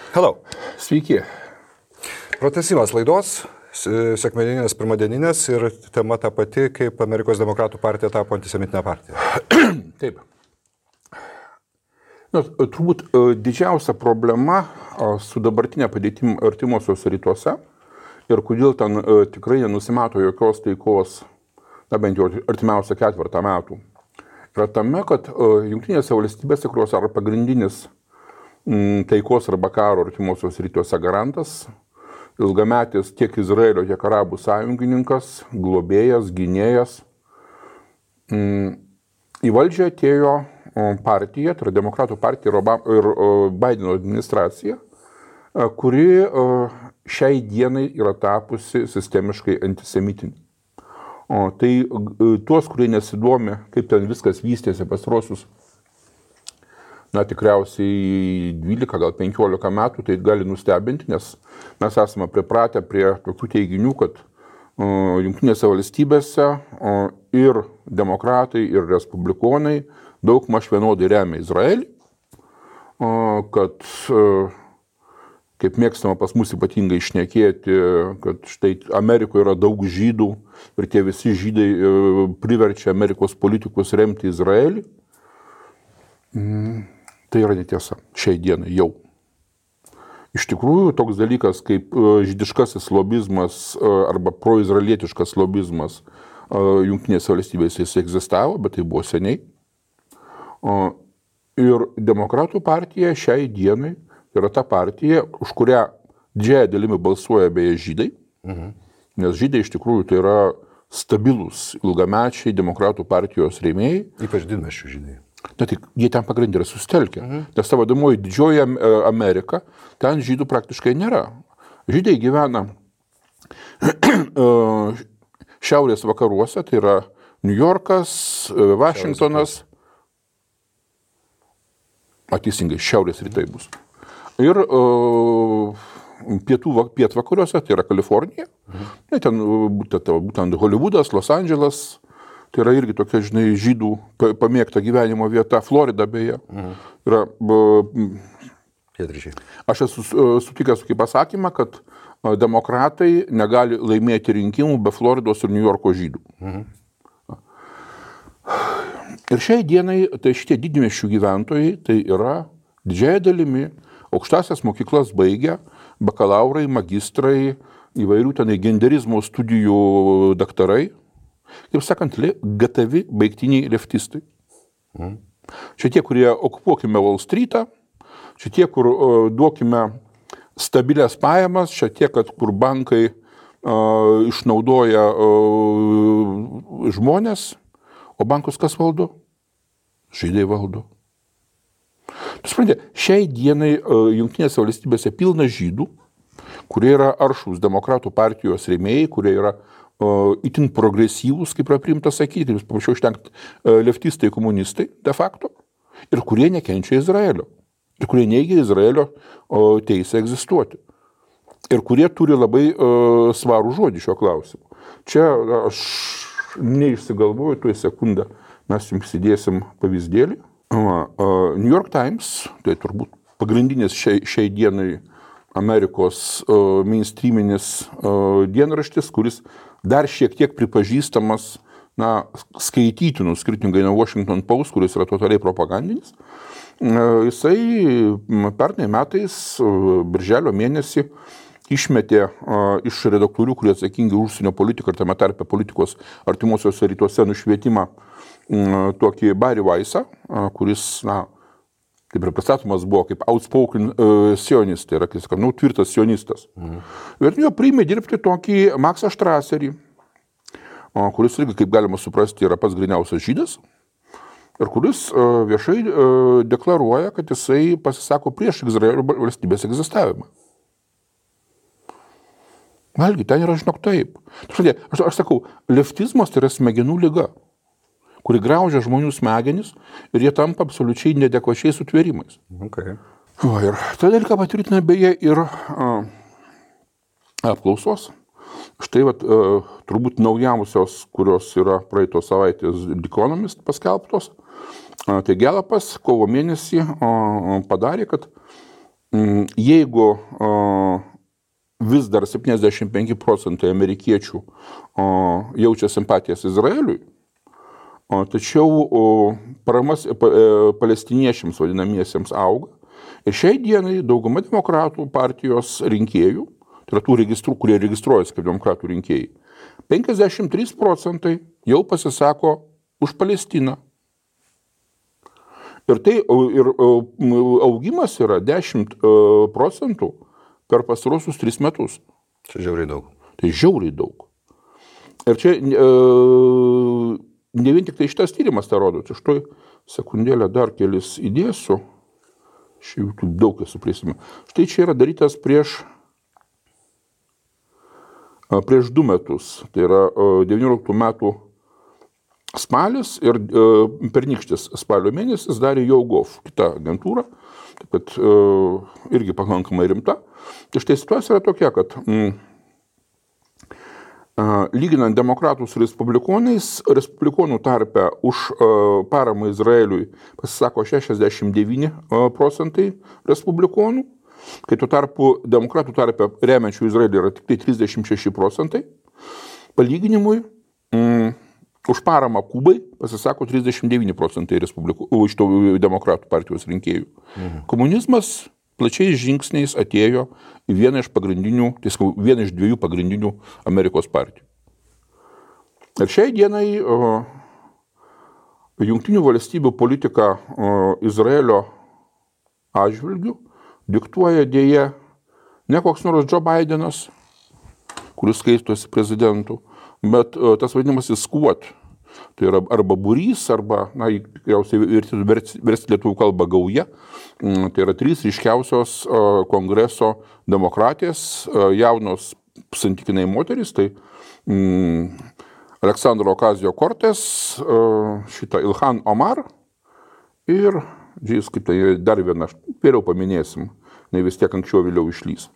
Hello. Sveiki. Pratęsimas laidos, sekmadieninės, pirmadieninės ir tema ta pati, kaip Amerikos demokratų partija tapo antisemitinė partija. Taip. Turbūt didžiausia problema su dabartinė padėtim artimuosiuose rytuose ir kodėl ten tikrai nenusimato jokios taikos, bent jau artimiausią ketvirtą metų, yra tame, kad Jungtinėse valstybėse, kurios yra pagrindinis taikos arba karo artimuosiuose rytuose garantas, ilgametis tiek Izraelio, tiek arabų sąjungininkas, globėjas, gynėjas. Į valdžią atėjo partija, tai yra Demokratų partija ir Baideno administracija, kuri šiai dienai yra tapusi sistemiškai antisemitinė. Tai tuos, kurie nesidomi, kaip ten viskas vystėsi pastarosius, tikriausiai 12, gal 15 metų, tai gali nustebinti, nes mes esame pripratę prie tokių teiginių, kad Jungtinėse valstybėse ir demokratai, ir respublikonai daugmaž vienodai remia Izraelį, kad, kaip mėgstama pas mus ypatingai šnekėti, kad štai Amerikoje yra daug žydų ir tie visi žydai priverčia Amerikos politikus remti Izraelį. Tai yra netiesa šiai dienai jau. Iš tikrųjų, toks dalykas kaip žydiškasis lobizmas arba proizraelietiškas lobizmas Jungtinėse valstybėse jis egzistavo, bet tai buvo seniai. Ir Demokratų partija šiai dienai yra ta partija, už kurią didžiąją dalimi balsuoja beje žydai, nes žydai iš tikrųjų tai yra stabilus ilgamečiai Demokratų partijos rėmėjai. Ypač didmiesčių žydai. Tik jie ten pagrindė yra susitelkę, nes ta vadinamoji didžioji Amerika, ten žydų praktiškai nėra. Žydai gyvena šiaurės vakaruose, tai yra New Yorkas, Vašingtonas, teisingai, šiaurės rytai bus. Ir pietvakariuose, tai yra Kalifornija, ten būtent Hollywoodas, Los Andželas. Tai yra irgi tokia, žydų pamėgta gyvenimo vieta, Florida beje. Yra, aš esu sutikęs tokį pasakymą, kad demokratai negali laimėti rinkimų be Floridos ir New Yorko žydų. Ir šiai dienai tai šitie didmiesčių gyventojai tai yra didžiąja dalimi aukštasias mokyklas baigę, bakalaurai, magistrai, įvairių tenai genderizmo studijų daktarai. Kaip sakant, gatavi baigtiniai leftistai. Čia tie, kurie okupuokime Wall Street'ą, čia tie, kur duokime stabilias pajamas, čia tie, kur bankai išnaudoja žmonės, o bankus kas valdo? Žydai valdo. Tu supranti, šiai dienai Jungtinėse valstybėse pilna žydų, kurie yra aršūs Demokratų partijos rėmėjai, kurie yra itin progresyvūs, kaip yra priimta sakyti, jūs paprašiau ištengti leftistai, komunistai, de facto, ir kurie nekenčia Izraelio, ir kurie neigia Izraelio teisę egzistuoti, ir kurie turi labai svarų žodį šio klausimu. Čia aš neišsigalvoju, tuoj sekundę mes jums įdėsim pavyzdėlį. New York Times, tai turbūt pagrindinis šiai dienai Amerikos mainstreaminis dienraštis, kuris dar šiek tiek pripažįstamas skaitytinų, skirtingai nuo Washington Post, kuris yra totaliai propagandinis. Jisai pernai metais, birželio mėnesį, išmetė iš redaktorių, kurie atsakingi už užsienio politiką ir tame tarpe politikos artimuosiuose rytuose nušvietimą tokį Barry Weissą, kuris, kaip ir pristatomas buvo, kaip outspoken sionistai, yra, kaip sakant, tvirtas sionistas. Ir jo priėmė dirbti tokį Maksą Štraserį, kuris irgi, kaip galima suprasti, yra pats gryniausias žydas, ir kuris viešai deklaruoja, kad jisai pasisako prieš Izraelio valstybės egzistavimą. Valgi, ten yra, žinok, taip. Aš sakau, leftizmas tai yra smegenų liga, kuri graužia žmonių smegenis ir jie tampa absoliučiai neadekvačiais sutvėrimais. Okay. Ir tą dalyką patvirtina beje ir apklausos. Štai turbūt naujausios, kurios yra praeitos savaitės The Economist paskelbtos. Tai Galapas kovo mėnesį padarė, kad jeigu vis dar 75% amerikiečių jaučia simpatijas Izraeliui, tačiau paramas palestiniečiams vadinamiesiems auga. Ir šiai dienai dauguma demokratų partijos rinkėjų, tai yra tų registrų, kurie registruojasi kaip demokratų rinkėjai, 53% jau pasisako už Palestiną. Ir augimas yra 10% per pastarosius 3 metus. Čia žiauriai daug. Tai žiauriai daug. Ir čia ne vien tik tai šitas tyrimas tą rodo. Tai štai sekundėlę dar kelis įdėsiu. Šiaip daug esu prisimenu. Štai čia yra darytas prieš 2 metus. Tai yra 19 metų spalis ir pernykštis spalio mėnesis darė YouGov, kita agentūra, taip pat irgi pakankamai rimta. Tai štai situacija yra tokia, kad lyginant demokratus su respublikonais, respublikonų tarpe už paramą Izraeliui pasisako 69% respublikonų, kai tuo tarpu demokratų tarpe remiančių Izraelį yra tik tai 36%. Palyginimui, už paramą Kubai pasisako 39% iš demokratų partijos rinkėjų. Komunizmas plačiais žingsniais atėjo į vieną iš 2 pagrindinių Amerikos partijų. Ir šiai dienai Jungtinių valstybių politika Izraelio atžvilgiu diktuoja dėja ne koks nors Joe Bidenas, kuris skaistosi prezidentu, bet tas vadinamasis squad. Tai yra arba būrys, arba, tikriausiai versti lietuvių kalbą gauja. Tai yra 3 ryškiausios kongreso demokratės, jaunos santykinai moterys. Tai Aleksandro Ocasio-Cortez, šitą Ilhan Omar ir, kaip tai dar viena, vėliau paminėsim, vis tiek anksčiau vėliau išlys.